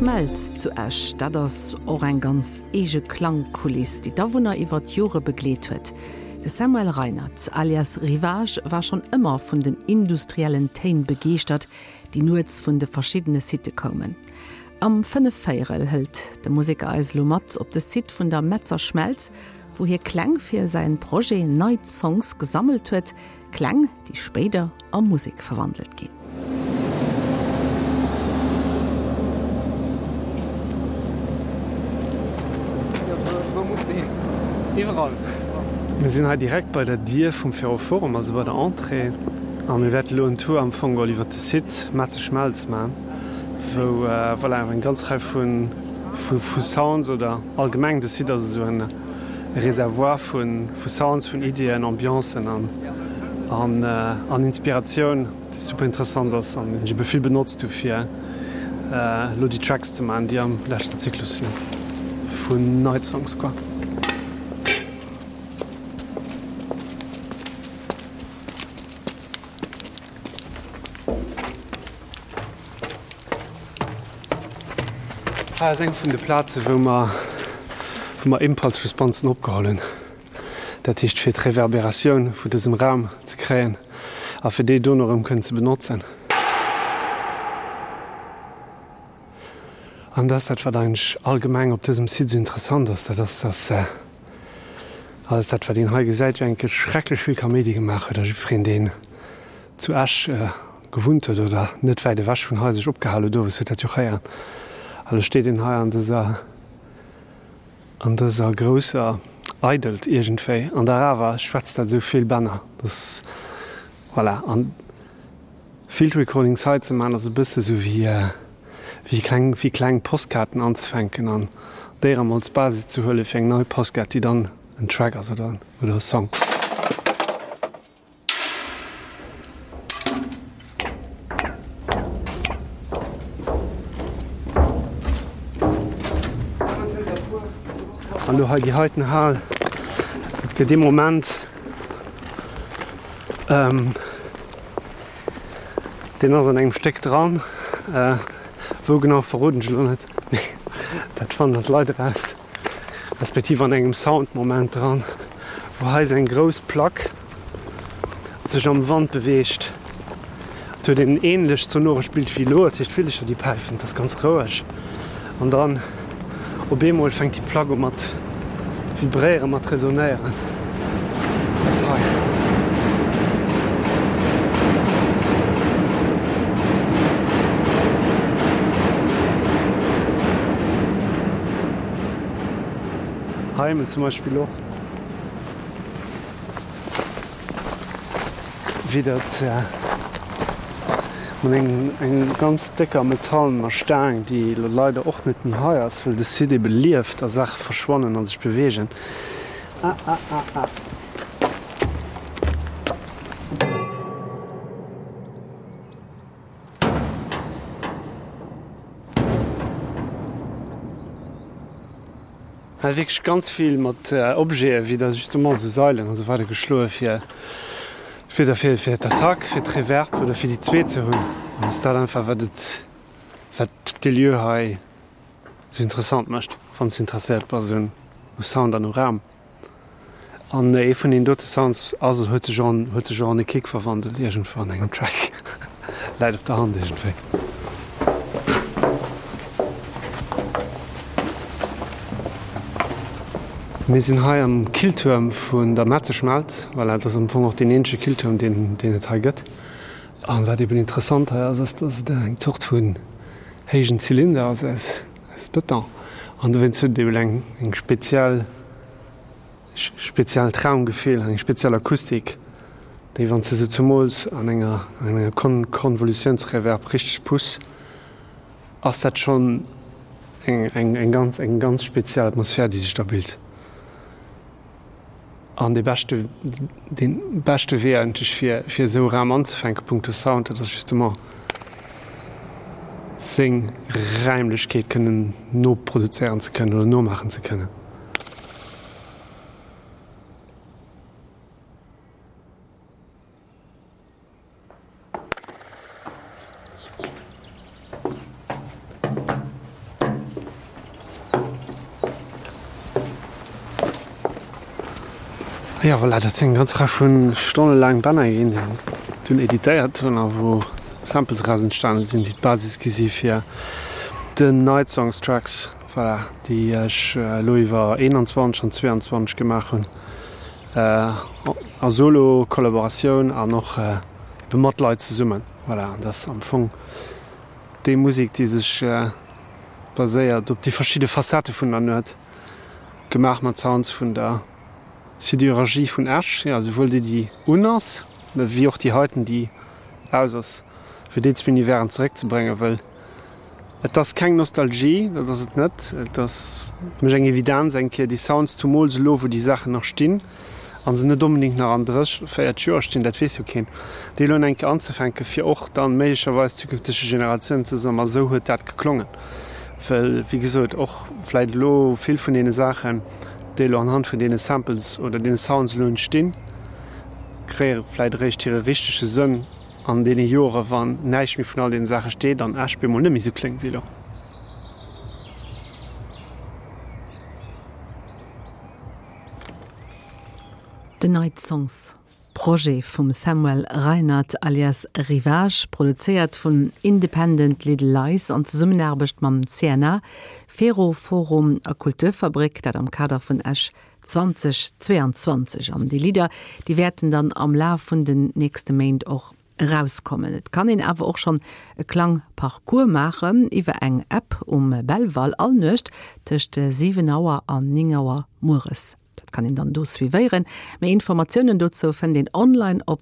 Schmelz zu Esch, dat ass och eng ganz eege Klangkuliss, déi d'Awunner iwwer d'Jore begleet huet. De Samuel Reinard alias Ryvage war schonn ëmmer vun den industriellen Téin begeeschtert, déi nuets vun de verschiddene Sitte koumen. Am Fënnefvéierel hëlt de Museker eis elo mat op de Site vun der Metzer Schmelz, wou hie Kläng fir säin Projet Night Songs gesammelt huet, Kläng, déi spéider a Musek verwandelt ginn. Iwwerall. Mir sinn hei direkt bei der Dier vum Ferroforum, also bei der Entrée, a mir wäerte elo en Tour am Fong geholl iwwer de Site Metze Schmelz maachen, wou voilà eng ganz Rei vu vu Sounds oder allgemeng de Site ass esou en Reservoir vu Sounds, vun Iddien, Ambiancen an an Inspiratioun, déi super interessant ass an déi ech ebe vill benotzt hu fir elo déi Tracks ze maachen, déi am leschten Zyklus sinn vun Night Songs quoi. Hei ass eng vun de Plaze wou mer wou mer Impulse-Responsen opgeholl hunn. Dat heescht fir d'Reverberatioun vu dësem Raum ze kréien a fir déi dono erëm kënnen ze benotzen. An dat ass dat wat eigentlech allgemeng op dësem Site esou interessant ass, dat ass dass alles dat wat een hei gesäit jo enke schrecklech vill Kaméidi gemaach huet a jiddwereen deen zu Esch gewunnt huet oder net wäit ewech vun hei sech opgehal huet, owes huet dat jo och héieren. A lo steet een hei an dëser, an dëser grousser Eidelt iergendwéi an der awer schwätzt dat esou vill Bänner, dass, voilà. An Field Recordings hei ze maachen ass e bësse sou wéi, wéi kleng, wéi kleng Postkaarten anzefänken an déi erëm als Basis ze huele fir eng nei Postkaart, déi dann en Track ass oder, oder e Song. An do hei déi heiten Hal, et gëtt ee Moment, deen ass an engem Stéck dran, wou genau verroden ech elo net, mee dat fannen dann d'Leit eraus, respektiv an engem Soundmoment dran, wou hei esou eng grouss Plack sech am Wand beweegt. Et huet een ähnlecht sonorescht Bild wéi elo, dat heescht d'Villecher déi päifen, et ass ganz roueg an dann op eemol fänkt déi Plack u mat vibréieren, mat resonéieren. Dat ass hei. Hei emol zum Beispill och. Wéi dat mat engem ganz décker metallener Staang, déi elo leider och net méi hei ass, well de Site ebe lieft a Saache verschwannen a sech beweegen. Ah, ah, ah, ah. Hei wierklech ganz vill mat Objete wéi da justement esou Sailen an esou weider geschloe fir fir da fir fir d'Attack, fir d'Reverb oder fir déi zweet ze hunn. An ass dat einfach wat et wat dee Lieu hei esou interessant mécht, wann s de interesséiert bass un u Sound an u Raum. An ee vun deenen dote Sounds ass, huet sech och an, huet sech och an e Kick verwandelt iergendwou an engem Track. Läit op der Hand iergendwéi. Mir sinn hei am Killtuerm vun der Metzeschmelz. Voilà, dat ass am Fong och deen eenzege Killtuerm, deen, deen et hei gëtt. An wat eben interessant hei ass, ass, dass et eng Zort vun héijen Zylinder ass aus, aus Beton. An dowéinst huet et eben eng, eng speziell. Speziellt Raumgefill, eng speziell Akustik, déi wann s de se zumools an enger an enger Konvolutiounsreverb richteg puss, ass dat schonn eng eng eng ganz eng ganz speziell Atmosphär, déi sech da bilt. An dee beschte dee beschte Wee eigentlech fir fir esou e Raum anzefänke punkto Sound, dat ass justement seng Räimlechkeet kënnen noproduzéieren ze kënnen oder nomaachen ze kënnen. Jo, voilà, dat sinn eng ganz Rei vu stonnelaang Bänner ginn, déi ech dunn editéiert hunn a wou Samples eraus entstane sinn, déi d'Basis gi si fir den Night Songs Tracks, voilà, déi ech elo iwwer 21 an 22 gemaach hunn, a Solo, Kollaboratioun an och ebe mat Leit zesummen. Voilà, an dat ass am Fong déi Musek, déi sech baséiert op déi verschidde Facettë vun der Nuet. Gemaach mat Sounds vun der Sidérurgie vun Esch, jo, souwuel déi déi un ass, wéi och déi heiten déi aus ass, fir déi zwee Universen zeréckzebréngen, wëll et ass keng Nostalgie, dat ass et net, et ass fir mech eng Evidenz eng Kéier déi Sounds, zumools elo wou déi Saachen nach stinn a se net onbedéngt nach an 30, 40 Joer stinn, dat weess jo keen, déi elo eng Kéier anzefänken, fir och dann méiglecherweis zukünftege Generatiounen ze soen, ma esou huet dat geklongen. Well, wéi gesot, och vläit elo vill vun deene Saachen, déi elo anhand vun deene Samples oder deene Sounds elo entstinn, kréie vläit eréischt hire richtege Sënn an deene Jore wann näischt méi vun all deene Saache steet an Esch bemol net méi esou kléngt wéi elo. The Night Songs. Projet vum Samuel Reinard alias Ryvage, produzéiert vun Independent Little Lies an Zesummenaarbecht mam CNA, Fero Forum a Kulturfabrik, dat am Kader vun Esch 2022. An déi Lidder, déi wäerten dann am Laf vun den nächste Méint och erauskommen. Et kann een awer och schonn e Klangparcours maachen iwwer eng App um Belval all Nuecht tëscht 7 Auer an 9 Auer mueres. Dat kann een dann do suivéieren. Méi Informatiounen dozou fënnt een online op.